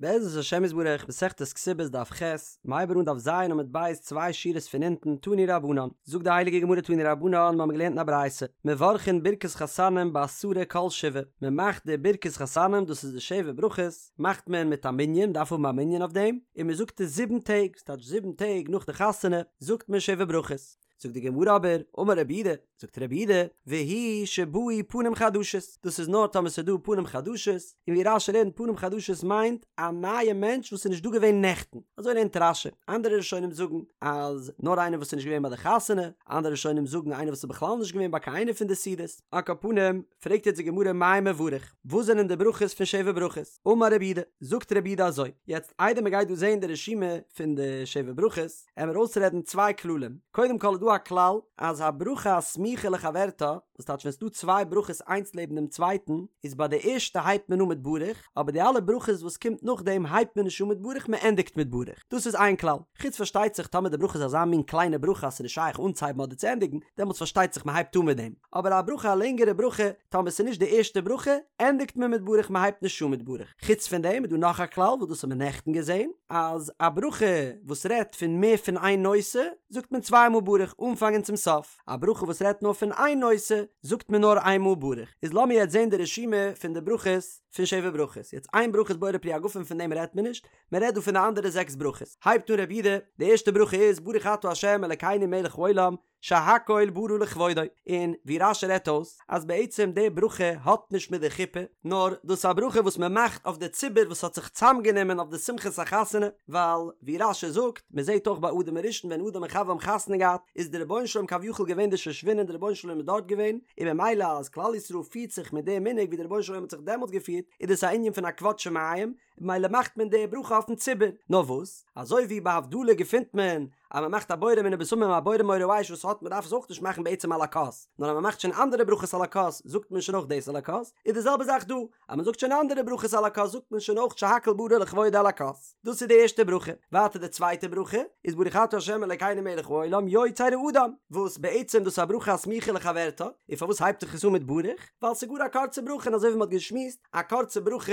בעזרת השם יתברך, מסכת כתובות דף ח', מ'הייבט אן דף ז עמוד ב' צוויי שורות פון אונטן, תנו רבנן, זאגט די הייליגע גמרא תנו רבנן, מ'האמיר געלערנט אין א ברייתא, מברכין ברכת חתנים בעשרה כל שבעה, מ'מאכט די ברכת חתנים, דאס איז די שבע ברכות, מאכט מען מיט א מנין, מ'דארף האבן א מנין אויף דעם, און מ'זאגט עס זיבן טעג, ס'טייטש זיבן טעג נאך די חתונה זאגט מען שבע ברכות. זאגט די גמרא אבער, אמר רבי יהודה, זאגט רבי יהודה, והוא שבאו פנים חדשות, דאס איז נאר טאמער ס'איז דא פנים חדשות, און ווי רש"י לערנט פנים חדשות מיינט א נייע מענטש וואס איז נישט דא געווען נעכטן, אזוי לערנט רש"י, אנדערע ראשונים זאגן אז נאר איינער וואס איז נישט געווען ביי די חתונה, אנדערע ראשונים זאגן איינער וואס איז בכלל נישט געווען ביי קיין איינע פון די סעודות, על כל פנים, פרעגט יעצט די גמרא מאי מברך, וואס זענען די ברכות פון שבע ברכות? אמר רבי יהודה, זאגט רבי יהודה אזוי, יעצט איידער מען גייט דא זען די רשימה פון די שבע ברכות, עמער אויסרעדן צוויי כללים, קודם כל איז דא א כלל אז הברכה הסמוכה לחברתה, וואס טייטש ווען ס'דא צוויי ברכות איינס לעבן דעם צווייטן, איז ביי די ערשטע הייבט מען אן מיט ברוך, אבער די אלע ברכות וואס קומט נאכדעם הייבט מען נישט אן מיט ברוך מען ענדיגט מיט ברוך, דאס איז איין כלל, חוץ פארשטייט זיך טאמער די ברכה איז אזא מין קליינע ברכה אז ס'איז נישט שייך אנצוהייבן אדער צו ענדיגן, דעמאלטס פארשטייט זיך מען הייבט אן מיט דעם, אבער א ברכה א לענגערע ברכה, טאמער ס'איז נישט די ערשטע ברכה, ענדיגט מען מיט ברוך מען הייבט נישט אן מיט ברוך. חוץ פון דעם איז דא נאך א כלל וואס דאס האבן מיר נעכטן געזען, אז א ברכה וואס רעדט פון מער פון איין נושא, זאגט מען צוויי מאל ברוך אנפאנג און צום סוף, א ברכה וואס רעדט נאר פון איין נושא, זאגט מען נאר איין מאל ברוך. איז לאמיר יעצט זען די רשימה פון די ברכות פון שבע ברכות. יעצט איין ברכה איז בורא פרי הגפן פון דעם רעדט מען נישט, מען רעדט דא פון די אנדערע זעקס ברכות. הייבט אן רבי יהודה, די ערשטע ברכה איז ברוך אתה ה' אלקינו מלך העולם, שהכל ברא לכבודו, און ווי רש"י רעדט אויס אז בעצם די ברכה האט נישט מיט די חופה, נאר דאס איז א ברכה וואס מען מאכט אויף די ציבור וואס האט זיך צוזאמגענומען אויף די שמחת החתונה, ווייל ווי רש"י זאגט, מען זעט אויך ביי אדם הראשון ווען אדם און חוה האבן חתונה געהאט איז די רבונו של עולם כביכול געווען די שושבין די רבונו של עולם איז דארט געווען, און ממילא אז כלל ישראל פירט זיך מיט די מנהג ווי די רבונו של עולם האט זיך דעמאלטס געפירט, איז דאס א ענין פון א כבוד שמים, ממילא מאכט מען די ברכה אויפן ציבור, נאר וואס, אזוי ווי ביי הבדלה געפינט מען אז מען מאכט א בורא מיני בשמים א בורא מאורי האש וואס האט מען דארף עס אויך נישט מאכן בעצם על הכוס, נאר אז מען מאכט שוין אנדערע ברכות על הכוס זאגט מען שוין אויך דאס על הכוס, איז די זעלבע זאך דא, אז מען זאגט שוין אנדערע ברכות על הכוס זאגט מען שוין אויך שהכל ברא לכבודו על הכוס, דאס איז די ערשטע ברכה, ווייטער די צווייטע ברכה איז ברוך אתה ה' אלקינו מלך העולם יוצר האדם, וואס בעצם דאס איז א ברכה הסמוכה לחברתה, און פארוואס הייבט זיך עס אן מיט ברוך? ווייל ס'איז גאר א קורצע ברכה און אזוי ווי מען האט געשמועסט, א קורצע ברכה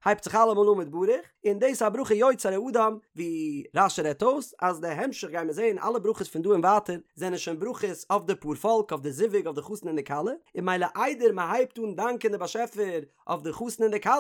הייבט זיך אלעמאל אן מיט ברוך, און דאס איז א ברכה יוצר האדם, ווי רש"י רעדט אויס אז די המשך גיימיר זעהן אלע ברכות פון דא און ווייטער זענען שוין ברכות אויף די פארפאלק אויף די זיווג אויף די חתן און די כלה, און ממילא איידער מען הייבט אן דאנקען די באשעפער אויף די חתן און די כלה,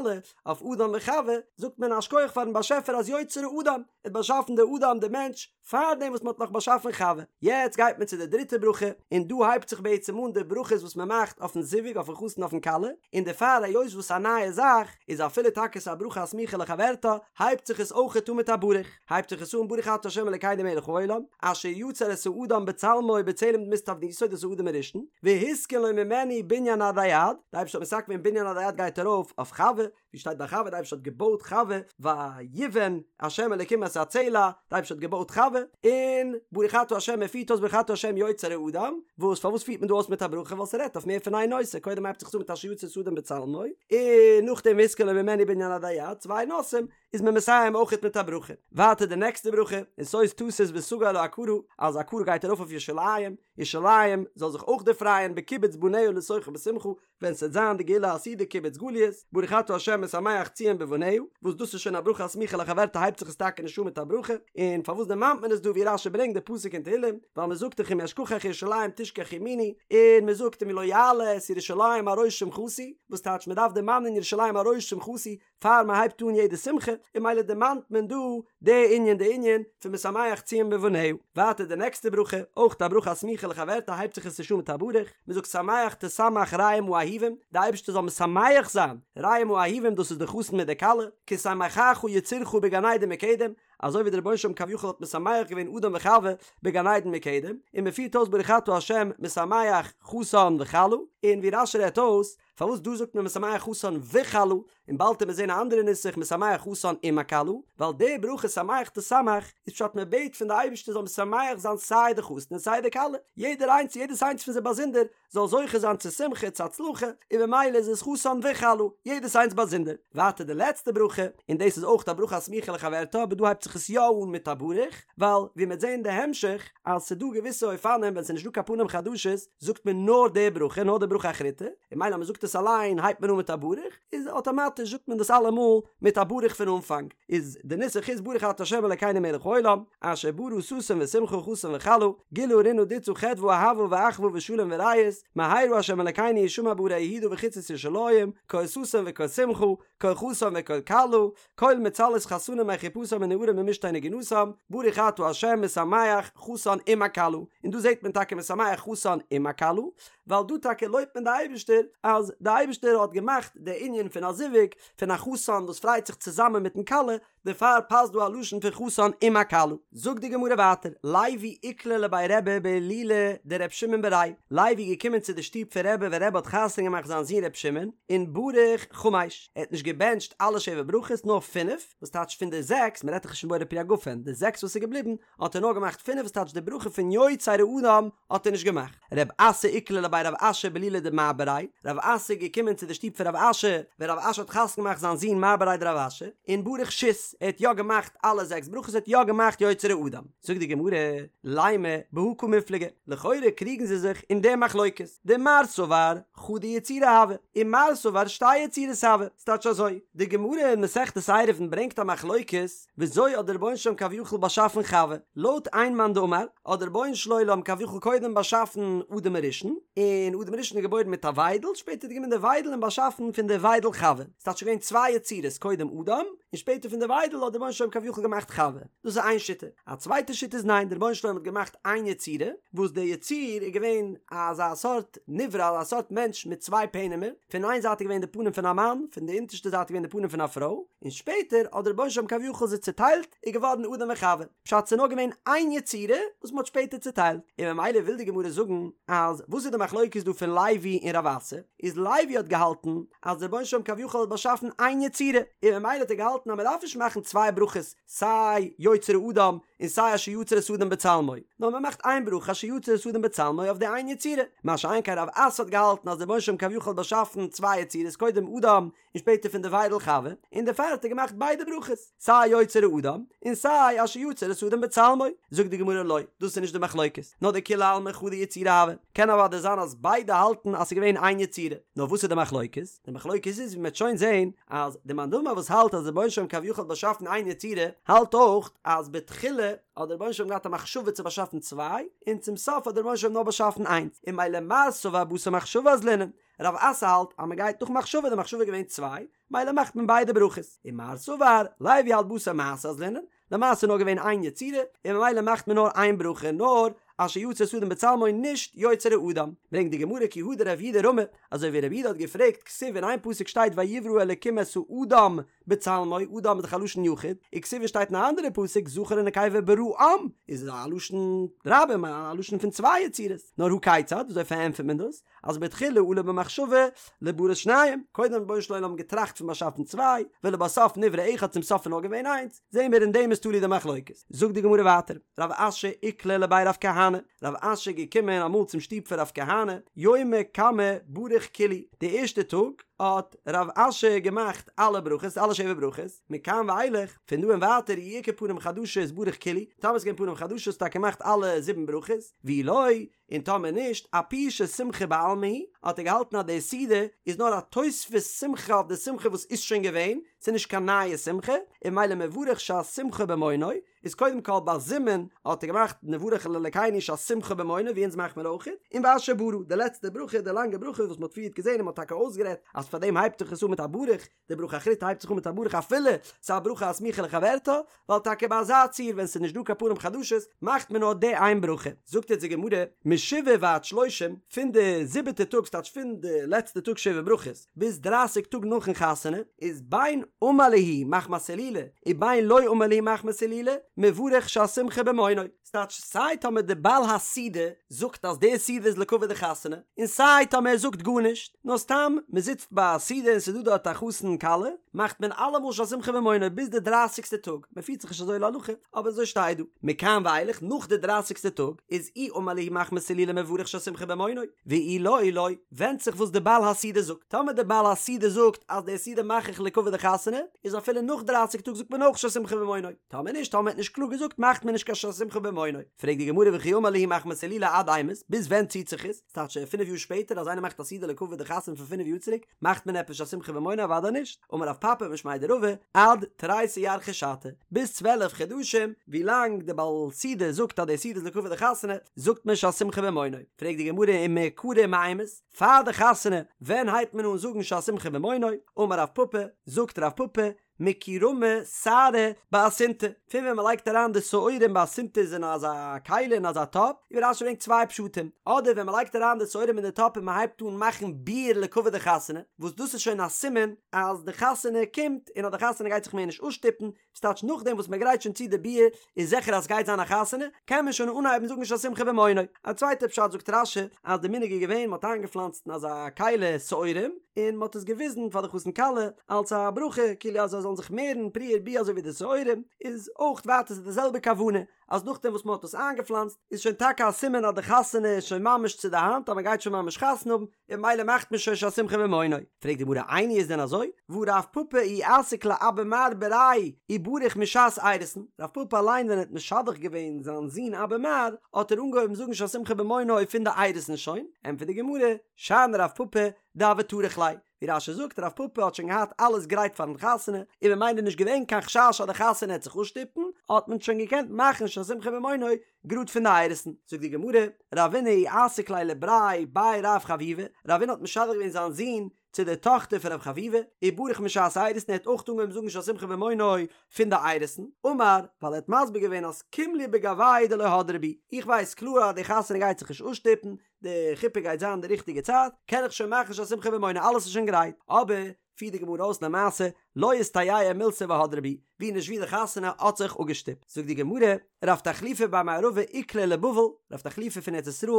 אויף אדם וחוה, זאגט מען א שכוח פארן באשעפער אז יוצר האדם, ער האט באשאפן די אדם די מענטש, פארדעם וואס מען האט נאך באשאפן חוה. יעצט גייט מען צו די דריטע ברכה, און דא הייבט זיך בעצם אן די ברכות וואס מען מאכט אויפן זיווג, אויפן חתן אויפן כלה, און דערפאר היות וואס א נייע זאך, איז אפילו טאקע ס'איז א ברכה הסמוכה לחברתה, הייבט זיך עס אויכעט אן מיט א ברוך. הייבט זיך עס אן ברוך אתה ה' אלקינו מלך העולם, אשר יצר את האדם בצלמו ובצלם דמות תבניתו, דאס איז אדם הראשון, והתקין לו ממנו בנין עדי עד, די אייבערשטער האט מתקן געווען בנין עדי עד גייט ארויף אויף חוה, ווי שטייט ביי חוה די אייבערשטער האט געבויט חוה ויבן ה' אלקים את הצלע די אייבערשטער האט געבויט חוה און ברוך אתה ה' מען פירט אויס ברוך אתה ה' יוצר האדם וואס פארוואס פירט מען דא אויס מיט א ברכה ווייל ס'רעדט אויף מער פון איין נושא קודם הייבט זיך עס אן מיט אשר יצר את האדם בצלמו און נאכדעם והתקין לו ממנו בנין עדי עד צוויי נושאים איז מען מסיים אויכעט מיט א ברכה ווייטער די נעקסטע ברכה און שוש תשיש ותגל העקרה אז עקרה גייט ארויף אויף ירושלים ירושלים זאל זיך אויך דערפרייען בקיבוץ בניה לתוכה בשמחה ווען ס'וועט זיין די גאולה העתידה קיבוץ גליות, ברוך אתה ה' משמח ציון בבניה, וואס דאס איז שוין א ברכה הסמוכה לחברתה הייבט זיך עס טאקע נישט אן מיט א ברכה, און פארוואס דערמאנט מען עס דא ווי רש"י ברענגט די פסוק אין תהילים, ווייל מען זאגט דאך אם אשכחך ירושלים תשכח ימיני, און מען זאגט אם לא אעלה את ירושלים על ראש שמחתי, וואס טייטש מען דארף דערמאנען ירושלים על ראש שמחתי, פאר מען הייבט אן יעדע שמחה, און ממילא דערמאנט מען דא די ענין די ענין פון משמח ציון בבניה. ווייטער די נעקסטע ברכה, אויך א ברכה הסמוכה לחברתה הייבט זיך עס נישט אן מיט א ברוך, מען זאגט שמח תשמח רעים האהובים, די אייבערשטער זאל משמח זיין רעים האהובים דאס איז די חתן מיט די כלה, כשמחך יצירך בגן עדן מקדם, אזוי ווי דער רבונו של עולם כביכול האט משמח געווען אדם וחוה בגן עדן מקדם, און מען פירט אויס ברוך אתה ה' משמח חתן וכלה, און ווי רש"י רעדט אויס, פארוואס דא זאגט מען משמח חתן וכלה, און באלד וועט מען זען א אנדערע נוסח משמח חתן עם הכלה, ווייל די ברכה שמח תשמח איז פשט מען בעט פון די אייבערשטער זאל משמח זיין סיי די חתן און סיי די כלה, יעדער איינס יעדעס איינס פון זיי באזונדער זאל זוכה זיין צו שמחה צו הצלחה, און ממילא איז עס חתן וכלה, יעדעס איינס באזונדער. ווייטער די לעצטע ברכה, און דאס איז אויך א ברכה הסמוכה לחברתה אבער דא הייבט זיך עס יא אן מיט א ברוך, ווייל ווי מ'וועט זען אין די המשך אז ס'איז דא געוויסע אופנים ווען ס'איז נישט דא קיין פנים חדשות זאגט מען נאר די ברכה נאר די ברכה אחריתא, און ממילא אז מ'זאגט עס. עס אליין הייבט מען אן מיט א ברוך, איז אטאמאטיש זאגט מען דאס אלעמאל מיט א ברוך פון אנפאנג, איז די נוסח איז ברוך אתה ה' אלקינו מלך העולם, אשר ברא ששון ושמחה חתן וכלה, גילה רינה דיצה חדוה אהבה ואחוה ושלום ורעות, מהרה ה' אלקינו ישמע בערי יהודה ובחוצות ירושלים, קול ששון וקול שמחה, קול חתן וקול כלה, קול מצהלות חתנים מחופתם ונערים ממשתה נגינתם, ברוך אתה ה' משמח חתן עם הכלה, און דא זעט מען טאקע משמח חתן עם הכלה, ווייל דא טאקע לויבט מען די אייבערשטער אז די אייבערשטער האט געמאכט די ענין פון א זיווג פון א חתן וואס פרייט זיך צוזאמען מיטן כלה, דערפאר פאסט דא א לשון פון חתן עם הכלה. זאגט די גמרא ווייטער, לוי איקלע לבי רבי בהילולא דר' שמעון בריה, לוי איז געקומען צו די שטוב פון רבי ווען רבי האט חתונה געמאכט זיין זון ר' שמעון, און בריך חמש, ער האט נישט געבענטשט אלע שבע ברכות נאר פינף, וואס טייטש פון די זעקס, מען רעדט דאך נישט פון בורא פרי הגפן, די זעקס וואס איז געבליבן האט ער נאר געמאכט פינף וואס טייטש די ברכה פון יוצר האדם האט ער נישט געמאכט. רב אסי איקלע לבי רב אשי בהילולא דמר בריה, רב אסי איז געקומען צו די שטוב פון רב אשי ווען רב אשי האט חתונה געמאכט זיין זון מר בריה דרב אשי, און בריך שית, ער האט יא געמאכט אלע זעקס ברכות ער האט יא געמאכט יוצר האדם. זאגט די גמרא, לימא בהא קמיפלגי, לכאורה קריגן זיי זיך אין די מחלוקת, דמר סבר חדא יצירה הואי, און מר סבר שתי יצירות הוו, ס'טייטש אזוי, די גמרא אין מסכת עירובין ברענגט א מחלוקת, וויאזוי האט דער רבונו של עולם כביכול באשאפן חווה? לויט איין מאן דאמר, האט דער רבונו של עולם כביכול קודם באשאפן אדם הראשון, און אדם הראשון איז געבוירן מיט א וויידל, שפעטער האט גענומען די וויידל און באשאפן פון די וויידל חווה. ס'טייטש געווען צוויי יצירות, קודם אדם, און שפעטער פון די וויידל האט דער רבונו של עולם כביכול געמאכט חווה. דאס איז איין שיטה. א צווייטע שיטה איז ניין, דער רבונו של עולם האט געמאכט איין יצירה, וואס דער יציר איז געווען אזא סארט נברא, אזא סארט מענטש מיט צוויי פענעמער, פון איין זייט איז געווען די פנים פון א מאן, פון די אונטערשטע זייט איז געווען די פנים פון א פרוי, און שפעטער האט דער רבונו של עולם כביכול זיי צוטיילט, איז געווארן אדם וחווה. פשט ס'איז נאר געווען איין יצירה וואס מ'האט שפעטער צוטיילט. און ממילא וויל די גמרא זאגן אז וואס איז די מחלוקת דא פון לוי און רב אסי, איז לוי האט געהאלטן אז דער רבונו של עולם כביכול האט באשאפן איין יצירה, און ממילא האט ער געהאלטן אז מ'דארף נישט מאכן צוויי ברכות סיי יוצר האדם און סיי אשר יצר את האדם בצלמו, נאר מ'מאכט איין ברכה אשר יצר את האדם בצלמו אויף די איין יצירה. מה שאין כן רב אסי האט געהאלטן אז דער רבונו של עולם כביכול האט באשאפן צוויי יצירות קודם אדם און שפעטער פון די וויידל חווה, און דערפאר האט ער געמאכט ביידע ברכות, סיי יוצר האדם, און סיי אשר יצר את האדם בצלמו. זאגט די גמרא לא, דאס איז נישט די מחלוקת, נאר דכולי עלמא חדא יצירה הואי, קען אוודאי זיין אז ביידע האלטן אז ס'איז געווען איין יצירה, נאר וואס איז די מחלוקת? די מחלוקת איז ווי מ'וועט שוין זען, אז די מאן דאמר וואס האלט אז דער רבונו של עולם כביכול האט באשאפן איין יצירה, האלט אויך אז בתחילה האט דער רבונו של עולם געהאט א מחשבה צו באשאפן צוויי, און צום סוף האט דער רבונו של עולם נאר באשאפן איינס, און ממילא מר סבר בתר מחשבה אזלינן, רב אסי האלט אז מען גייט נאך מחשבה, די מחשבה איז געווען צוויי, מילא מאכט מען ביידע ברכות, און מר סבר, לוי האלט בתר מעשה אזלינן, למעשה איז נאר געווען איין יצירה, און ממילא מאכט מען נאר איין ברכה, נאר אשר יצר את האדם בצלמו נישט יוצר האדם. ברענגט די גמרא כי הא דרב יהודה רמי, אזוי ווי רב יהודה האט געפרעגט כתיב אין איין פסוק שטייט ויברא אלקים את האדם בצלמו, אדם איז דאך א לשון יחיד, וכתיב שטייט אין א אנדערע פסוק זכר ונקבה בראם, איז א לשון רבים, א לשון פון צוויי יצירות, נאר הא כיצד, וויאזוי פארענטפערט מען דאס? אז בתחילה עלה במחשבה לבראת שניים, קודם האט רבונו של עולם געטראכט פון באשאפן צוויי, ולבסוף נברא אחד צום סוף איז נאר געווען איינס, זעהן מיר אין דעם איז תלוי די מחלוקת. זאגט די גמרא ווייטער, רב אשי איקלע לבי רב כהנא, רב אשי איז געקומען אמאל צום שטוב פון רב כהנא, יומא קמא בריך כולהו, די ערשטע טאג האט רב אשי געמאכט אלע ברכות, אלע שבע ברכות, מכאן ואילך, פון דא און ווייטער אי איכא פנים חדשות בריך כולהו, טאמער איז געווען פנים חדשות האט ער געמאכט אלע זיבן ברכות, ואי לא, און טאמער נישט, אפושי שמחה בעלמא היא, האט ער געהאלטן אז די סעודה איז נאר א תוספות שמחה אויף די שמחה וואס איז שוין געווען, ס'איז נישט קיין נייע שמחה, און ממילא מברך שהשמחה במעונו, איז קודם כל ביי זימון האט ער געמאכט נברך לאלקינו שהשמחה במעונו ווי אונז מאכט מען אויך, און ואשר ברא, די לעצטע ברכה, די לאנגע ברכה וואס מ'האט פריערט געזען און מ'האט טאקע אויסגערעדט אז פאר דעם הייבט זיך עס אן מיט א ברוך, די ברכה אחריתא הייבט זיך אן מיט א ברוך אפילו ס'איז א ברכה הסמוכה לחברתה, ווייל טאקע ביי אזא ציור ווען ס'איז נישט דא קיין פנים חדשות מאכט מען נאר די איין ברכה. זאגט יעצט די גמרא, משבעה ועד שלושים, פון די זיבעטע טאג ס'טייטש פון די לעצטע טאג שבע ברכות ביז דרייסיג טאג נאכן חתונה, איז בין אמר להו מחמת הילולא ובין לא אמר להו מחמת הילולא, מברך שהשמחה במעונו. ס'טייטש סיי טאמער די בעל הסעודה זאגט אז די סעודה איז לכבוד די חתונה, און סיי טאמער ער זאגט גארנישט, נאר סתם מ'זיצט. ביי א סעודה און ס'איז דא דארט א חתן כלה, מאכט מען אלעמאל שהשמחה במעונו ביז די דרייסיגסטע טאג, מען פירט זיך נישט אזוי להלכה, אבער אזוי שטייט דא. מכאן ואילך, נאך די דרייסיגסטע טאג, איז אי אמר להו מחמת הילולא מברך שהשמחה במעונו, ואי לא לא, ווענדט זיך וואס די בעל הסעודה זאגט, טאמער די בעל הסעודה זאגט אז די סעודה מאך איך לכבוד די חתונה, איז אפילו נאך דרייסיג טאג זאגט מען אויך שהשמחה במעונו, טאמער נישט, טאמער מ'האט נישט קלאר געזאגט מאכט מען נישט קיין שהשמחה במעונו. פרעגט די גמרא וכי אמר להו מחמת הילולא עד אימת, ביז ווען ציט זיך עס? ס'טייטש פינף יאר שפעטער אז איינער מאכט א סעודה לכבוד די חתונה פון פינף יאר צוריק, מאכט מען עפעס שהשמחה במעונו? אוודאי נישט, אמר רב פפא משמיה דרבא, עד תריסר ירחי שתא, ביז 12 חדשים, ווי לאנג די בעל סעודה זאגט אז די סעודה איז לכבוד די חתונה, זאגט מען שהשמחה במעונו. פרעגט די גמרא ומעיקרא מאימת, פאר די חתונה, ווען הייבט מען אן זאגן שהשמחה במעונו? אמר רב פפא, זאגט רב פפא, מכי רמו שערי באסינתא, פון ווען מ'לייגט אריין די שעורים באסינתא איז אין אזא כלי אין אזא טאפ, ווי רש"י ברענגט צוויי פשטים, אדער ווען מ'לייגט אריין די שעורים אין די טאפ און מ'הייבט אן מאכן ביר לכבוד די חתונה, וואס דאס איז שוין א סימן אז די חתונה קומט און אז די חתונה גייט זיך מער נישט אפשטופן, ס'טייטש נאכדעם וואס מ'גרייט שוין צו די ביר איז זיכער אז סגייט זיין א חתונה, קען מען שוין אנהייבן זאגן שהשמחה במעונו. א צווייטע פשט זאגט רש"י אז די מנהג איז געווען מ'האט איינגעפלאנצט אין אזא כלי שעורים און מ'האט עס געוויזן פאר די חתן כלה אלס א ברכה כאילו אז זיי זאלן זיך מערן פרו ורבו אזוי ווי די שעורים, איז אויך ווייטער ס'איז די זעלבע כוונה אז נאכדעם וואס מ'האט עס איינגעפלאנצט איז שוין טאקע א סימן אז די חתונה איז שוין ממש צו די האנט אז מ'גייט שוין ממש חתונה האבן, און ממילא מאכט מען שוין שהשמחה במעונו. פרעגט די גמרא איני איז דען אזוי? והא רב פפא אי אסיק לאבא מר בריה ובריך משעת אירוסין, רב פפא אליין ווען ער האט משדך געווען זיין זון אבא מר האט ער אנגעהויבן זאגן שהשמחה במעונו פון די אירוסין שוין, ענטפערט די גמרא, שאני רב פפא דהוה טרח ליה, ווי רש"י זאגט רב פפא האט שוין געהאט אלעס גרייט פארן חתונה און ממילא נישט געווען קיין חשש אז די חתונה העט זיך אפשטופן, האט מען שוין געקענט מאכן שהשמחה במעונו גראד פון די אירוסין, זאגט די גמרא, רבינא אי אסיק ליה לבריה בי רב חביבא, רבינא האט משדך געווען זיין זון צו די טאכטער פון רב חביבא, ובריך משעת אירוסין, ער האט אויך אנגעהויבן זאגן שהשמחה במעונו פון די אירוסין, אמר, ווייל ער האט מסביר געווען אז קים לי בגוייהו דלא הדרי בהו, איך ווייס קלאר אז די חתונה גייט זיך נישט אפשטופן, די חופה גייט זיין די ריכטיגע צייט, קען איך שוין מאכן שהשמחה במעונו, אלעס איז שוין גרייט, אבער פירט די גמרא אויס למעשה לא איסתייעא מילתא והדרי בהו, ווי נישט ווי די חתונה האט זיך אפגעשטופט. זאגט די גמרא, רב תחליפא בר מערבא איקלע לבבל, רב תחליפא פון ארץ ישראל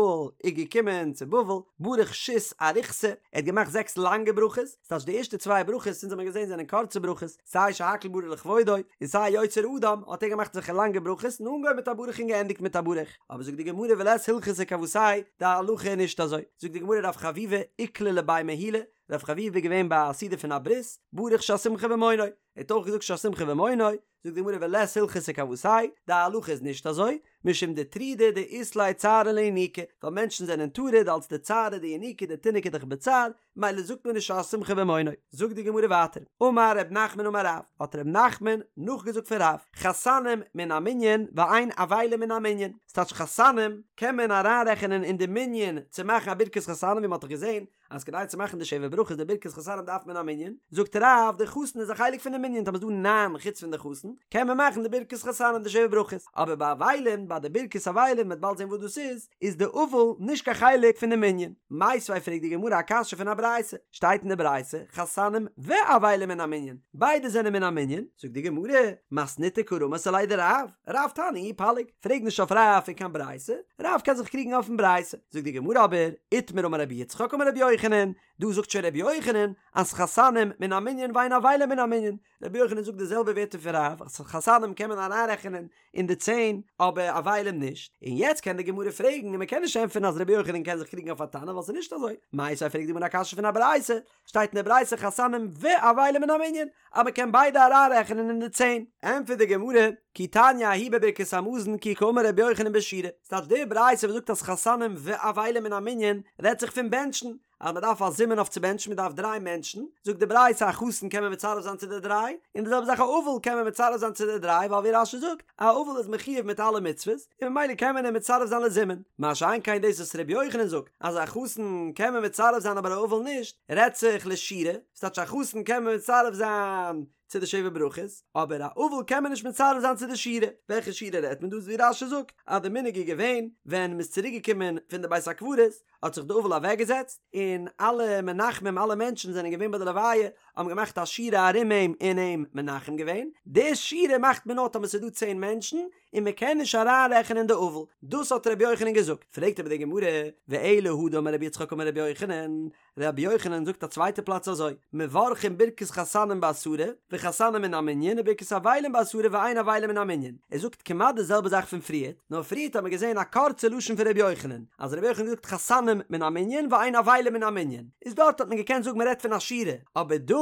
איז געקומען צו בבל, בריך שית אריכתא, ער האט געמאכט זעקס לאנגע ברכות, ס'טייטש די ערשטע צוויי ברכות, אונז האבן געזען זענען קורצע ברכות, סיי שהכל ברא לכבודו, און סיי יוצר אדם, האט ער געמאכט אזעלכע לאנגע ברכות, און אנגעהויבן מיט א ברוך און געענדיגט מיט א ברוך. אבער זאגט די גמרא ולית הלכתא כוותיה, די הלכה איז נישט אזוי. זאגט די גמרא רב חביבא איקלע לבי מהולא, רב חביבא איז געווען ביי א סעודה פון א ברית, בריך שהשמחה במעונו, ער האט אויך געזאגט שהשמחה במעונו, זאגט די גמרא ולית הלכתא כוותיה, די הלכה איז נישט אזוי, משום דטרידי דאית ליה צערא לינוקא, ווייל מענטשן זענען טרוד אלס די צערא דינוקא, די תינוק איז דאך בצער, מילא זאגט מען נישט שהשמחה במעונו. זאגט די גמרא ווייטער, אמר ר' נחמן אמר רב, האט ר' נחמן נאכגעזאגט פון רב, חתנים מן המנין ואין אבלים מן המנין, ס'טייטש חתנים קען מען אריינרעכענען אין די מנין צו מאכן א ברכת חתנים ווי מ'האט דאך געזען אז כדי צו מאכן די שבע ברכות די ברכת חתנים דארף מען א מנין, זאגט רב די חתן איז א חלק פון די מנין טאמער איז דא ניין חוץ פון די חתן קען מען מאכן די ברכת חתנים די שבע ברכות, אבער ביי אבלים ביי די ברכת אבלים מ'וועט באלד זען וואס דאס איז, איז די אבל נישט קיין חלק פון די מנין. מיתיבי פרעגט די גמרא א קשיא פון א ברייתא, שטייט אין די ברייתא חתנים ואבלים מן המנין, ביידע זענען מן המנין, זאגט די גמרא, מתניתא קא רמית עליה דרב, רב תנא הוא ופליג, פרעג נישט אויף רב פון קיין ברייתא, רב קען זיך קריגן אויפן ברייתא, זאגט די גמרא אבער, איתמר אמר רבי יצחק אמר רבי יוחנן, דא זאגט שוין רבי יוחנן אז חתנים מן המנין ואין אבלים מן המנין, רבי יוחנן זאגט די זעלבע ווערטער פון רב אז חתנים קען מען אריינרעכענען אין די צען אבער אבלים נישט, און יעצט קען די גמרא פרעגן און מען קען נישט ענטפערן אז רבי יוחנן קען זיך קריגן אויף א תנא ווייל ס'איז נישט אזוי, מיתיבי פרעגט די גמרא א קשיא פון א ברייתא, שטייט אין די ברייתא חתנים ואבלים מן המנין אז מען קען ביידע אריינרעכענען אין די צען. ענטפערט די גמרא, כי תניא ההיא בברכת המזון כי קאמר רבי יוחנן בשירה, ס'טייטש די ברייתא וואס זאגט אז חתנים ואבלים מן המנין רעדט זיך פון בענטשן, אז מען דארף א זימון אויף צו בענטשן, מען דארף דריי מענטשן, זאגט די ברייתא א חתן קען מען מצרף זיין צו די דריי, און די זעלבע זאך א אבל קען מען מצרף זיין צו די דריי, ווייל ווי רש"י זאגט, א אבל איז מחויב מיט אלע מצוות, און ממילא קען מען אים מצרף זיין לזימון, מה שאין כן דאס וואס ר' יוחנן זאגט אז א חתן קען מען מצרף זיין אבער א אבל נישט, רעדט זיך לשירה, ס'טייטש א חתן קען מען מצרף זיין. צו די שבע ברכות, אבער א אבל קען מען נישט מצרף זיין צו די שירה, וועלכע שירה רעדט מען דא? ווי רש"י זאגט אז די מנהג איז געווען ווען מ'איז צוריק געקומען פון די בית הקברות האט זיך די אבל אוועקגעזעצט און אלע מנחמים אלע מענטשן זענען געווען ביי די לוויה האבן געמאכט א שורה ארום אים און אים מנחם געווען, די שירה מאכט מען נאר טאמער ס'איז דא צען מענטשן און מען קען נישט אריינרעכענען די אבל, דאס האט רבי יוחנן געזאגט, פרעגט אבער די גמרא, ואלא הא דאמר רבי יצחק אמר רבי יוחנן, רבי יוחנן זאגט א צווייטע פלאץ אזוי, מברכין ברכת חתנים בעשרה, וחתנים מן המנין, וברכת אבלים בעשרה ואין אבלים מן המנין, ער זאגט כמעט די זעלבע זאך פון פריערט, נאר פריערט האט מען געזען א קורצע לשון פון רבי יוחנן, אז רבי יוחנן האט געזאגט חתנים מן המנין ואין אבלים מן המנין, איז דארט האט מען געקענט זאגן מען רעדט פון א שירה, אבער דא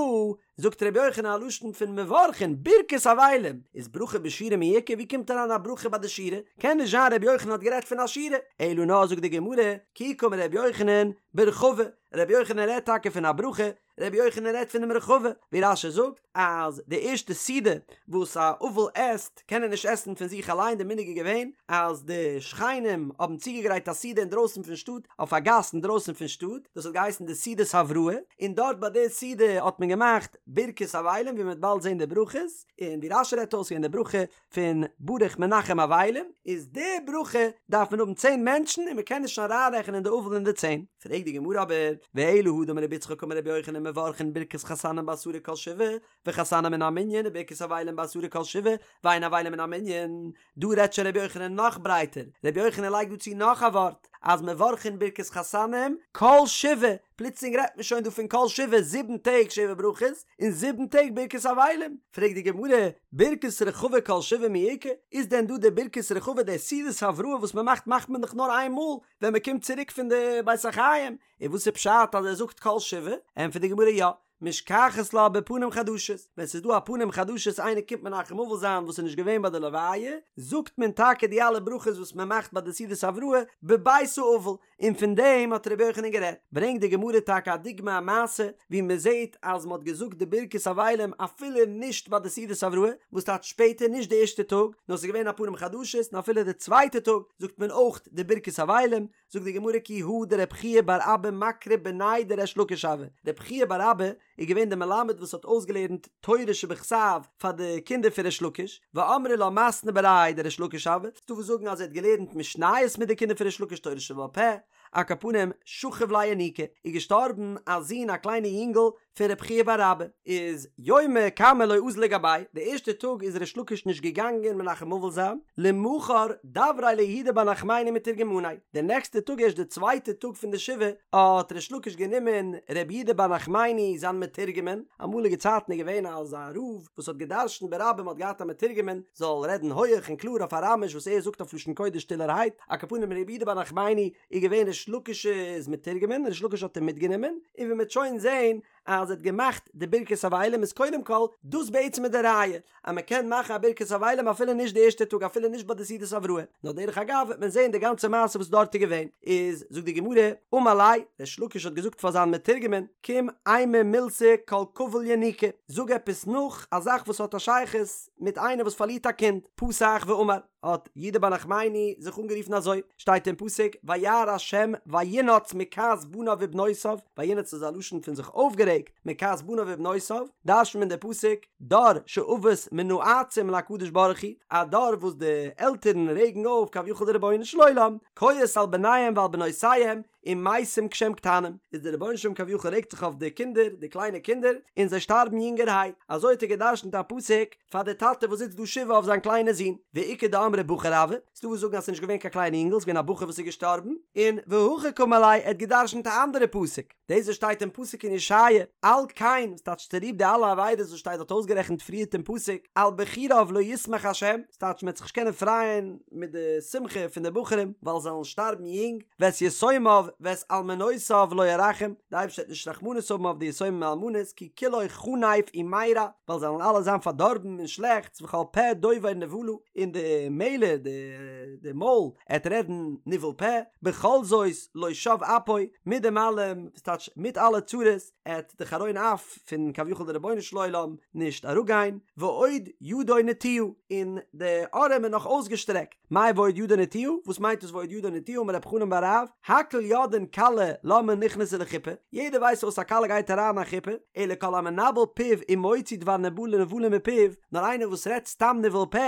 זאגט רבי יוחנן א לשון פון מברכין ברכת אבלים, איז ברכה בשירה מי איכא, ווי קומט אריין א ברכה ביי די שירה? קען נישט זיין רבי יוחנן האט גערעדט פון א שירה, אלא נאר זאגט די גמרא, כי קאמר רבי יוחנן ברחבה, רבי יוחנן רעדט טאקע פון א ברכה, רבי יוחנן רעדט פונעם רחבה, ווי רש"י זאגט אז די ערשטע סעודה וואס א אבל עסט קען ער נישט עסן פון זיך אליין, די מנהג איז געווען אז די שכנים האבן צוגעגרייט א סעודה אינדרויסן פון שטאט, אויף א גאס אינדרויסן פון שטאט, דאס האט געהייסן די סעודת הבראה, און דארט ביי די סעודה האט מען געמאכט ברכת אבלים ווי מען וועט באלד זען די ברכות, און ווי רש"י רעדט אויס אין די ברכה פון ברוך מנחם אבלים, איז די ברכה דארף מען האבן צען מענטשן און מען קען נישט אריינרעכענען די אבל אין די צען. פרעגט די גמרא אבער, ואלא הא דאמר רבי יצחק אמר רבי יוחנן מברכין ברכת חתנים בעשרה כל שבעה, וחתנים מן המנין וברכת אבלים בעשרה כל שבעה, ואין אבלים מן המנין, דא רעדט שוין רבי יוחנן נאך ברייטער, רבי יוחנן לייגט דא צו נאך א ווארט, אז מברכין ברכת חתנים כל שבעה, פלוצלינג רעדט מען שוין דא פון כל שבעה, זיבן טעג שבע ברכות, און זיבן טעג ברכת אבלים, פרעגט די גמרא, ברכת רחבה כל שבעה מי איכא, איז דען דא די ברכת רחבה די סעודת הבראה וואס מען מאכט מאכט מען דאך נאר איין מאל ווען מען קומט צוריק פון די בית החיים, און וואס איז פשט אז ער זאגט כל שבעה, ענטפערט די גמרא יא, משכחת לה בפנים חדשות, ווען ס'איז דא א פנים חדשות איינער קומט מנחם אבל זיין וואס איז נישט געווען ביי די לוויה, זאגט מען טאקע די אלע ברכות וואס מען מאכט ביי די סעודת הבראה בבית האבל, און פון דעם האט רבי יוחנן גערעדט. ברענגט די גמרא טאקע א דוגמא א מעשה ווי מען זעט אז מען האט געזאגט די ברכת אבלים אפילו נישט ביי די סעודת הבראה, וואס טייטש שפעטער נישט די ערשטע טאג, נאר ס'איז געווען א פנים חדשות און אפילו די צווייטע טאג זאגט מען אויך די ברכת אבלים, זאגט די גמרא כי הא דרב חייא בר אבא מקרי בניה דריש לקיש הוה, רב חייא בר אבא איז געווען דער מלמד וואס האט אויסגעלערנט תורה שבכתב פאר די קינדער פון ריש לקיש, ואמרי לה מתני בריה דריש לקיש הוה, ס'דא וואס זאגן אז ער האט געלערנט משניות מיט די קינדער פון ריש לקיש תורה שבעל פה, על כל פנים שכיב ליה ינוקא, איז געשטארבן א זון א קליינע יונגל פון רב חייא בר אבא, איז יומא קמא לא אזל לגביה, די ערשטע טאג איז ריש לקיש נישט געגאנגען מנחם אבל זיין, למחר דבריה ליהודה בר נחמני מתורגמניה, די נעקסטע טאג ערשט די צווייטע טאג פון די שבעה האט ריש לקיש גענומען ר' יהודה בר נחמני זיין מתורגמן, אמאליגע צייטן איז געווען אז א רב וואס האט גע'דרש'נט ברבים האט געהאט א מתורגמן זאל רעדן הויעך און קלאר אויף אראמיש וואס ער זאגט אויף לשון קודש שטילערהייט, על כל פנים ר' יהודה בר נחמני איז געווען ריש לקיש'ס מתורגמן, ריש לקיש האט אים מיטגענומען, און ווי מ'וועט שוין זעהן אז ער האט געמאכט די ברכת אבלים איז קודם כל דאס בעצם איז די ראיה אז מען קען מאכן א ברכת אבלים אפילו נישט די ערשטע טאג אפילו נישט ביי די סעודת הבראה, נאר דרך אגב וועט מען זעהן די גאנצע מעשה וואס דארט איז געווען, איז זאגט די גמרא, אמר ליה, ריש לקיש האט געזאגט פאר זיין מתורגמן, קום אימא מילתא כל קביל ינוקא, זאג עפעס נאך א זאך וואס האט א שייכות מיט איינער וואס פארלירט א קינד, פתח ואמר. האט יהודה בר נחמני זיך אנגערופן אזוי, שטייט אין פסוק, וירא השם וינאץ מכעס בניו ובנותיו, וינאץ איז א לשון פון זיך אויפגערעגט, מכעס בניו ובנותיו, דרש'נט מען די פסוק, דור שאבות מנאצים להקדוש ברוך הוא, א דור וואס די עלטערן רעגן אויף כביכול די רבונו של עולם, כועס על בניהם ועל בנותיהם, ומתים כשהם קטנים, איז דער רבונו של עולם כביכול רעגט זיך אויף די קינדער, די קליינע קינדער, און זיי שטארבן יונגערהייט, אזוי האט ער גע'דרש'נט א פסוק פאר די טאטע וואס זיצט דא שבעה אויף זיין קליינע זון, ואיכא דאמרי בחור הוה, ס'דא וואס זאגן אז ס'איז נישט געווען קיין קליינע יונגל, ס'איז געווען א בחור וואס איז געשטארבן, און והכי קאמר ליה, ער האט גע'דרש'נט א אנדערע פסוק, דאס וואס שטייט אין פסוק אין ישעיה, על כן, וואס טייטש צוליב די אלע עבירות וואס שטייט דארט אויסגערעכנט פריערט אין פסוק, על בחוריו לא ישמח ה', ס'טייטש מ'וועט זיך נישט קענען פרייען מיט די שמחה פון די בחורים ווייל זיי וועלן שטארבן יונג, ואת יתומיו ואת אלמנותיו לא ירחם, די אייבערשטער וועט נישט רחמנות האבן אויף די יתומים און אלמנות, כי כולו חנף ומרע, ווייל זיי וועלן אלע זיין פארדארבן און שלעכטס, וכל פה דובר נבלה, און די מעלער, די מויל, עט רעדן ניבול פה, בכל זאת לא שב אפו, מיט דעם אלעם, ס'טייטש מיט אלע צרות, עט די חרון אף פון כביכול די רבונו של עולם נישט אראפגיין, ועוד ידו נטויה, און די ארעם איז נאך אויסגעשטרעקט, מאי ועוד ידו נטויה, וואס מיינט דאס ועוד ידו נטויה, אמר רב חנן בר רב, הכל יודעים יודעין כלה למה נכנסה לחופה, יעדער ווייסט פארוואס א כלה גייט אריין אין א חופה, אלא כל המנבל פיו ומוציא דבר נבלה נבלה מפיו, נאר איינער וואס רעדט סתם ניבול פה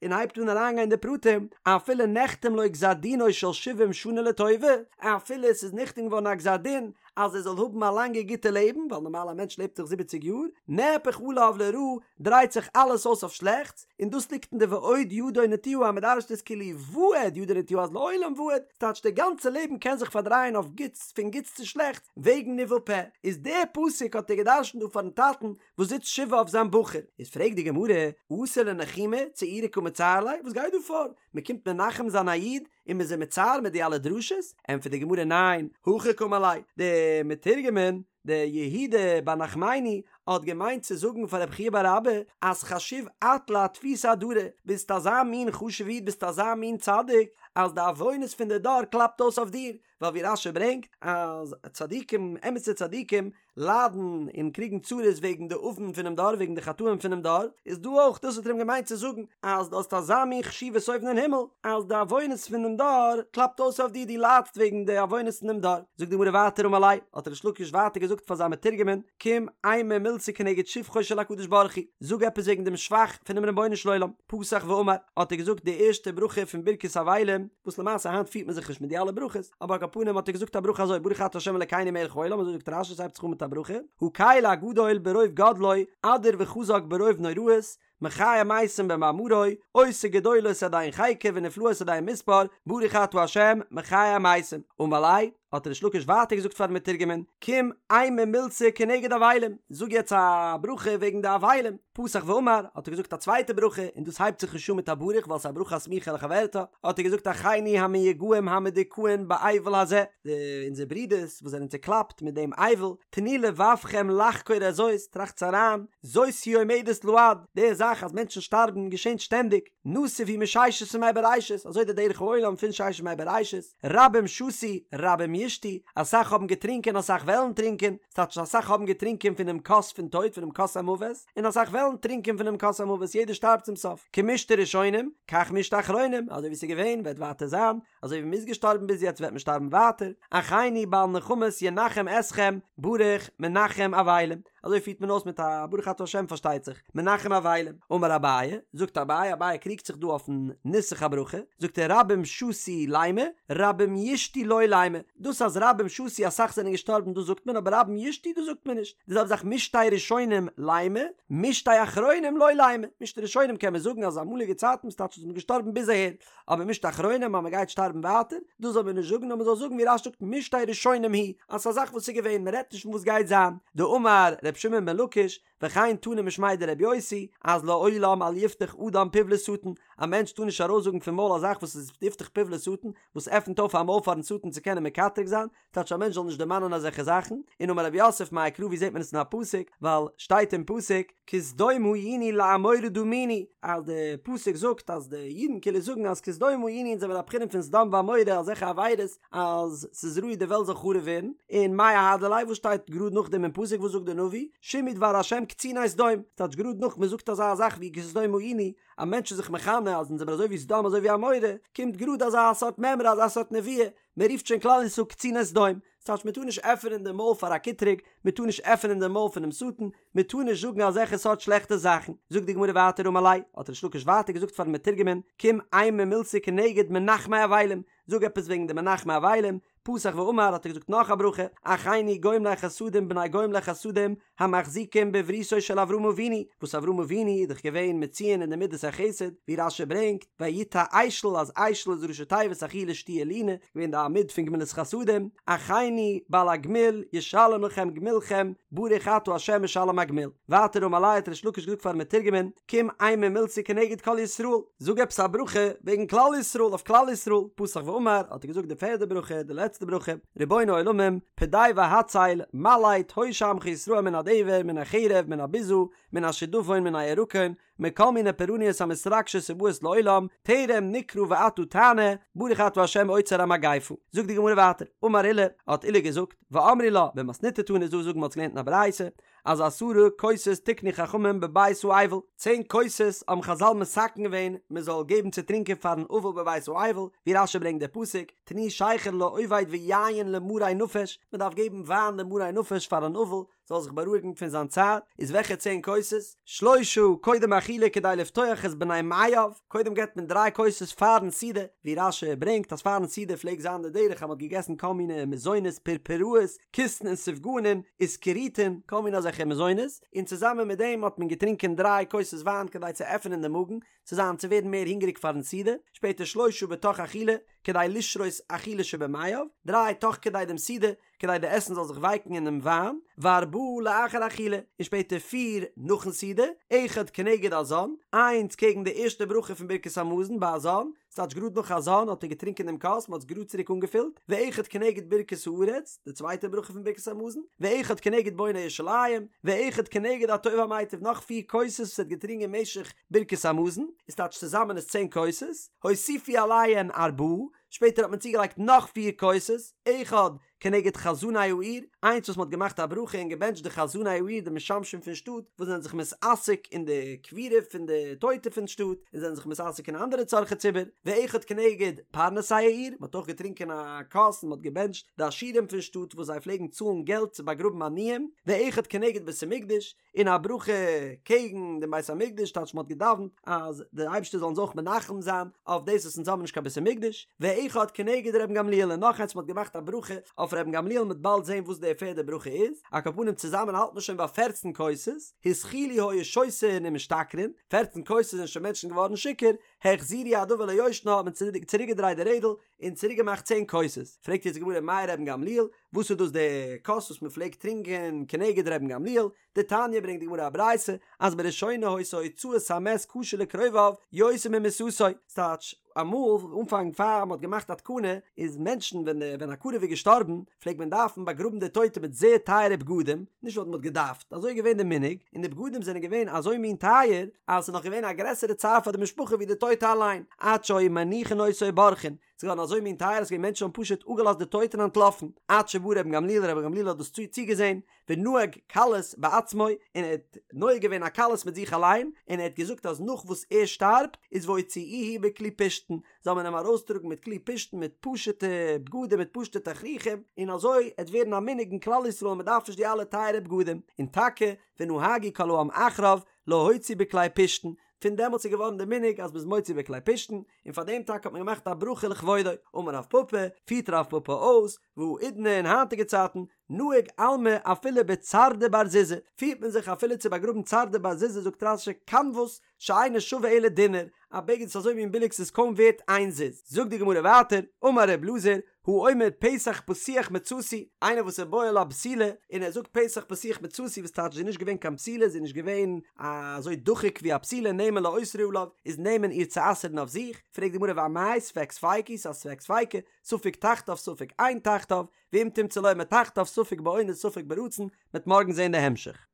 און הייבט אן אריינגיין אין די פרטים, אפילו נחתם לו גזר דינו של שבעים שנה לטובה, אפילו עס איז נחתם געווארן א גזר דין אז ער זאל האבן א לאנגע גוטע לעבן, ווייל נארמאל א מענטש לעבט דאך זיבעציג יאר, נהפך עליו לרעה, דרייט זיך אלעס אויס אויף שלעכטס, און דאס ליגט אין די ועוד ידו נטויה אז מ'דרש'ט עס כאילו ועד ידו נטויה אז לעולם ועד, ס'טייטש די גאנצע לעבן קען זיך פארדרייען אויף גוטס פון גוטס צו שלעכטס וועגן ניבול פה, איז די פסוק האט ער געדרש'נט דא פארן טאטן וואס זיצט שבעה אויף זיין בחור. איז פרעגט די גמרא, אתו לנחומי צעורי קא מצער ליה, וואס גייט דא פאר? מ'קומט מנחם זיין א איד און מ'איז אים מצער מיט די אלע דרשות? ענטפערט די גמרא ניין, הכי קאמר ליה, די מתורגמן דער יהודה בר נחמני האט געמיינט צו זאגן פאר רבי חייא בר אבא אז חשיב את לאטפותא אדרא, ביסט אזא מין חשוב איד ביסט אזא מין צדיק אז די עוונות פון די דור קלאפט אויס אויף דיר, ווייל ווי רש"י ברענגט אז צדיקים אמת'ע צדיקים ליידן און קריגן צרות וועגן די עוון פונעם דור וועגן די חטאים פונעם דור, איז דא אויך דאס האט ער אים געמיינט צו זאגן אז דו האסט אזא מין חשיבות אויבן אין הימל אז די עוונות פונעם דור קלאפט אויס אויף דיר דו ליידסט וועגן די עוונות פונעם דור. זאגט די גמרא ווייטער אמר ליה, האט ריש לקיש ווייטער געזאגט פאר זיין מתורגמן, קום אימא מילתא כנגד שבחו של הקדוש ברוך הוא, זאג עפעס וועגן דעם שבח פונעם רבונו של עולם, פתח ואמר, האט ער געזאגט די ערשטע ברכה פון ברכת אבלים, וואס למעשה היינט פירט מען זיך נישט מיט די אלע ברכות, אבער על כל פנים האט ער געזאגט א ברכה אזוי, ברוך אתה ה' אלקינו מלך העולם, אזוי זאגט רש"י, ס'הייבט זיך אן מיט א ברכה, הקל הגדול ברוב גדלו, אדיר וחזק ברוב נוראות, מחיה מתים במאמרו, עושה גדולות עד אין חקר ונפלאות עד אין מספר, ברוך אתה ה' מחיה המתים. אמר ליה, האט ריש לקיש ווייטער געזאגט פארן מתורגמן, קום אימא מילתא כנגד אבלים, זאג יעצט א ברכה וועגן די אבלים. פתח ואמר, האט ער געזאגט א צווייטע ברכה, און דאס הייבט זיך נישט אן מיט א ברוך ווייל ס'איז א ברכה הסמוכה לחברתה, האט ער געזאגט אחינו המיוגעים המדוכאין באבל הזה, די אונזער ברודערס וואס זענען צוקלאפט מיט דעם אבל, תנו לבבכם לחקור את זאת, טראכטס אריין, זאת היא עומדת לעד, די זאך אז מענטשן שטארבן געשענט שטענדיג, נתיב הוא מששת ימי בראשית, אזוי די דרך העולם פון ששת ימי בראשית, רבים שתו, רבים ישתו, אסאך האבן געטרינקען אסאך וועלן טרינקען, ס'טייטש אסאך האבן געטרינקען פונעם כוס פון טויט פונעם כוס המוות, און אסאך וועלן טרינקען פונעם כוס המוות, יעדער שטארבט צום סוף, כמשתה ראשונים, כך משתה אחרונים, אזוי ווי ס'איז געווען וועט ווייטער זיין, אזוי ווי מ'איז געשטארבן ביז יעצט וועט מען שטארבן ווייטער, אחינו בעל נחמות ינחם אתכם, ברוך מנחם אבלים, אזוי פירט מען אויס מיט א ברוך אתה ה' פארשטייט זיך, מנחם אבלים, אמר אביי, זאגט אביי, אביי קריגט זיך דא אויפן נוסח הברכה, זאגט ער רבים שתו לימא, רבים ישתו לא לימא, דאס אז רבים שתו אסאך זענען געשטארבן דאס זאגט מען אבער רבים ישתו דאס זאגט מען נישט, די זעלבע זאך משתה ראשונים לימא, משתה אחרונים לא לימא, משתה ראשונים קען מען זאגן אז אמאליגע צייטן ס'טייטש אז מ'איז געשטארבן ביז אהער, אבער משתה אחרונים אז מען גייט שטארבן ווייטער, דאס זאל מען נישט זאגן נאר מען זאל זאגן ווי רש"י זאגט משתה ראשונים הוא, אז ס'איז א זאך וואס איז געווען, מען רעדט נישט פון וואס גייט זיין, דאמר ר' שמעון בן לקיש, וכן תנא משמיה דרבי יוסי, אז לעולם אל יפתח אדם פיו לשטן, א מענטש טאר נישט ארויסזאגן פון מויל א זאך וואס איז יפתח פיו לשטן, וואס עפנט אויף א מויל פארן שטן צו קענען מקטרג זיין, טייטש א מענטש זאל נישט דערמאנען אזעלכע זאכן, און אמר רב יוסף מאי קרא ווי זעט מען עס אין א פסוק, ווייל שטייט אין פסוק כסדום היינו לעמורה דמינו, אז די פסוק זאגט אז די אידן כאילו זאגן אז כסדום היינו אונז זעמיר א בחינה פון סדום ועמורה אזעלכע עבירות אז ס'איז ראוי די וועלט זאל חרוב ווערן, און מאי אהדר ליה וואס שטייט גראד נאכדעם אין פסוק וואס זאגט די נביא, שמעו דבר השם קציני סדום, טייטש גראד נאך מען זאגט אזא זאך ווי כסדום היינו, א מענטש איז זיך מכנה אז אונז זעמיר אזוי ווי סדום אזוי ווי עמורה, קומט גראד אזא סארט מימרא אזא סארט נבואה, מען רופט שוין כלל ישראל קציני סדום, ס'טייטש מען טאר נישט עפענען די מויל פאר א קטרוג, מען טאר נישט עפענען די מויל פונעם שטן, מען טאר נישט זאגן אזעלכע סארט שלעכטע זאכן. זאגט די גמרא ווייטער אמר ליה, האט ריש לקיש ווייטער געזאגט פארן מתורגמן, קום אימא מילתא כנגד מנחמי אבלים, זאג עפעס וועגן די מנחמי אבלים, פתח ואמר האט ער געזאגט נאך א ברכה, אחינו גומלי חסדים בני גומלי חסדים, המחזיקים בבריתו של אברהם אבינו, וואס אברהם אבינו איז דאך געווען מצויין אין די מידת החסד, ווי רש"י ברענגט, ויטע אשל אז אשל איז ראשי תיבות אכילה שתיה לינה, געווען די עמוד פון גמילות חסדים, אחינו בעל הגמול ישלם לכם גמולכם, ברוך אתה ה' משלם הגמול. ווייטער אמר ליה האט ריש לקיש געזאגט פארן מתורגמן, קום אימא מילתא כנגד כל ישראל, זאג עפעס א ברכה וועגן כלל ישראל אויף כלל ישראל, פתח ואמר האט ער געזאגט די פערדע ברכה, די לעצטע ברכה, רבון העולמים, פדה והצל, מלט, הושע עמך ישראל מן הדבר, מן החרב, מן הביזה, מן השדפון, מן הירקון, מכל מיני פורעניות המתרגשות ובאות לעולם, טרם נקרא ואתה תענה, ברוך אתה ה' עוצר המגיפה. זאגט די גמרא ווייטער, אמר עולא, האט עולא געזאגט, ואמרי לה, במתניתא תנא איז דא וואס זאגן מ'האט עס געלערנט אין א ברייתא, אז עשרה כוסות תיקנו חכמים בבית האבל, צען כוסות האבן חזל מתקן געווען מען זאל געבן צו טרינקען פארן אבל בבית האבל, ווי רש"י ברענגט די פסוק, תנו שכר לאובד ויין למרי נפש, מען דארף געבן וויין למרי נפש פאר אן אבל זאל זיך בארואיגן פון זיין צער, איז וועלכע צען כוסות? שלושה קודם אכילה כדי לפתוח את בני מעיו, קודם געבט מען דריי כוסות פארן סעודה, ווי רש"י ברענגט אז פארן סעודה פלעגט זיין די דרך אז מען האט געגעסן כל מיני מזונות פורפראות, כיסין און סופגנין, אסקריטין, כל מיני אזעלכע מזונות, און צוזאמען מיט דעם האט מען געטרינקען דריי כוסות וויין כדי צו עפענען דעם מאגן, צו זיין צו ווערן מער הונגעריג פארן סעודה, שפעטער שלושה בתוך אכילה, כדי לשרות אכילה שבמעיו, דריי תוך כדי דעם סעודה, כדי די עסן זאל זיך ווייקן אינעם וויין, וארבעה לאחר אכילה, און שפעטער פיר נאכן סעודה, אחד כנגד הזן, איינס קעגן די ערשטע ברכה פון ברכת המזון ביי הזן, ס'טייטש גראד נאך הזן האט ער געטרינקען דעם כוס, מ'האט עס גראד צוריק אנגעפילט, ואחד כנגד ברכת הארץ, די צווייטע ברכה פון ברכת המזון, ואחד כנגד בונה ירושלים, ואחד כנגד הטוב והמיטיב, נאך פיר כוסות וואס ער האט געטרינקען משך ברכת המזון, איז טייטש צוזאמען איז צען כוסות, הוסיפו עליהן ארבעה, שפעטער האט מען צוגעלייגט נאך פיר כוסות, אחד כנגד חזני העיר, איינס וואס מען האט געמאכט א ברכה און געבענטשט די חזני העיר די משמשים פון שטאט וואס זענען זיך מתעסק אין די קבורה פון די טויטע פון שטאט און זענען זיך מתעסק אין אנדערע צרכי ציבור, ואחד כנגד פרנסי העיר, מען האט אויך געטרינקען א כוס און מען האט געבענטשט די עשירים פון שטאט וואס זיי פלעגן צאלן געלט צו באגראבן עניים, ואחד כנגד בית המקדש, און א ברכה קעגן דעם בית המקדש, טייטש מען האט געדאווענט אז דער אייבערשטער זאל אונז אויך מנחם זיין אויף דאס וואס אונז האבן נישט קיין בית המקדש, ואחד כנגד רבן גמליאל און נאך איינס מען האט געמאכט א ברכה אויף רבן גמליאל מ'וועט באלד זען וואס די פערדע ברכה איז, על כל פנים צוזאמען האלט מען שוין ביי פערצן כוסות, התחילו היו שותין ומשתכרין, פערצן כוסות זענען שוין מענטשן געווארן שיכור, החזירו הדבר ליושנה האט מען צוריק געדרייט די רעדל און צוריק געמאכט צען כוסות, פרעגט יעצט די גמרא מאי רבן גמליאל, וואס איז דאס די כוס וואס מען פלעגט טרינקען כנגד רבן גמליאל? דתניא ברענגט די גמרא א ברייתא אז בראשונה היתה הוצאת המת קשה לקרוביו יותר ממיתתו, ס'טייטש אמאל אנפאנג פאר מ'האט געמאכט א תקנה איז מענטשן ווען ווען א קרוב איז געשטארבן פלעגט מען דארפן באגראבן די טויטע מיט זייער טייערע בגדים, נישט ווייל מ'האט געדארפט, אזוי איז געווען די מנהג, און די בגדים זענען געווען אזוי מין טייער אז ס'איז נאך געווען א גרעסערע צער פאר די משפחה ווי די טויטע אליין, עד שהיו מניחין אותו ובורחין, ס'איז געווארן אזוי מין טייער אז ס'געווען מענטשן האבן פשוט אפגעלאזט די טויטע און אנטלאפן, עד שבא רבן גמליאל, רבן גמליאל האט דאס צוגעזען, ונהג קלות בעצמו, און ער האט נוהג געווען א קלות מיט זיך אליין, און ער האט געזאגט אז נאך וואס ער שטארבט, איז והוציאוהו בכלי פשתן, זאל מען אים ארויסטראגן מיט כלי פשתן מיט פשוטע בגדים מיט פשוטע תכריכים, און אזוי עט ווערן א מנהג אין כלל ישראל מען דארף נישט די אלע טייערע בגדים, און טאקע ונהגו כל העם אחריו להוציא בכלי פשתן, פון דעמאלטס איז געווארן די מנהג אז מ'איז מוציא בכלי פשתן, און פאר דעם טאקע האט מען געמאכט א ברכה לכבודו. אמר רב פפא, פירט רב פפא אויס, והאידנא אין היינטיגע צייטן, נהיג עלמא אפילו בצרדא בר זוזא, פירט מען זיך אפילו צו באגראבן צרדא בר זוזא זאגט רש"י קנבוס שאינו שווה אלא דינר, א בגד איז אזוי מין ביליג ס'איז קוים ווערט איין זוז. זאגט די גמרא ווייטער, אמר ר' אלעזר, האומר פתח פתוח מצאתי, איינער וואס איז בועל א בתולה און ער זאגט פתח פתוח מצאתי וואס טייטש זי איז נישט געווען קיין בתולה זי איז נישט געווען אזוי דחוק ווי א בתולה נאמן לאוסרה עליו איז נאמן איר צו אסר'ן אויף זיך, פרעגט די גמרא ואמאי ספק ספיקא היא ס'איז א ספק ספיקא, ספק תחתיו ספק אין תחתיו, ואם תמצא לומר תחתיו ספק באונס ספק ברצון, מ'עט מארגן זעהן די המשך.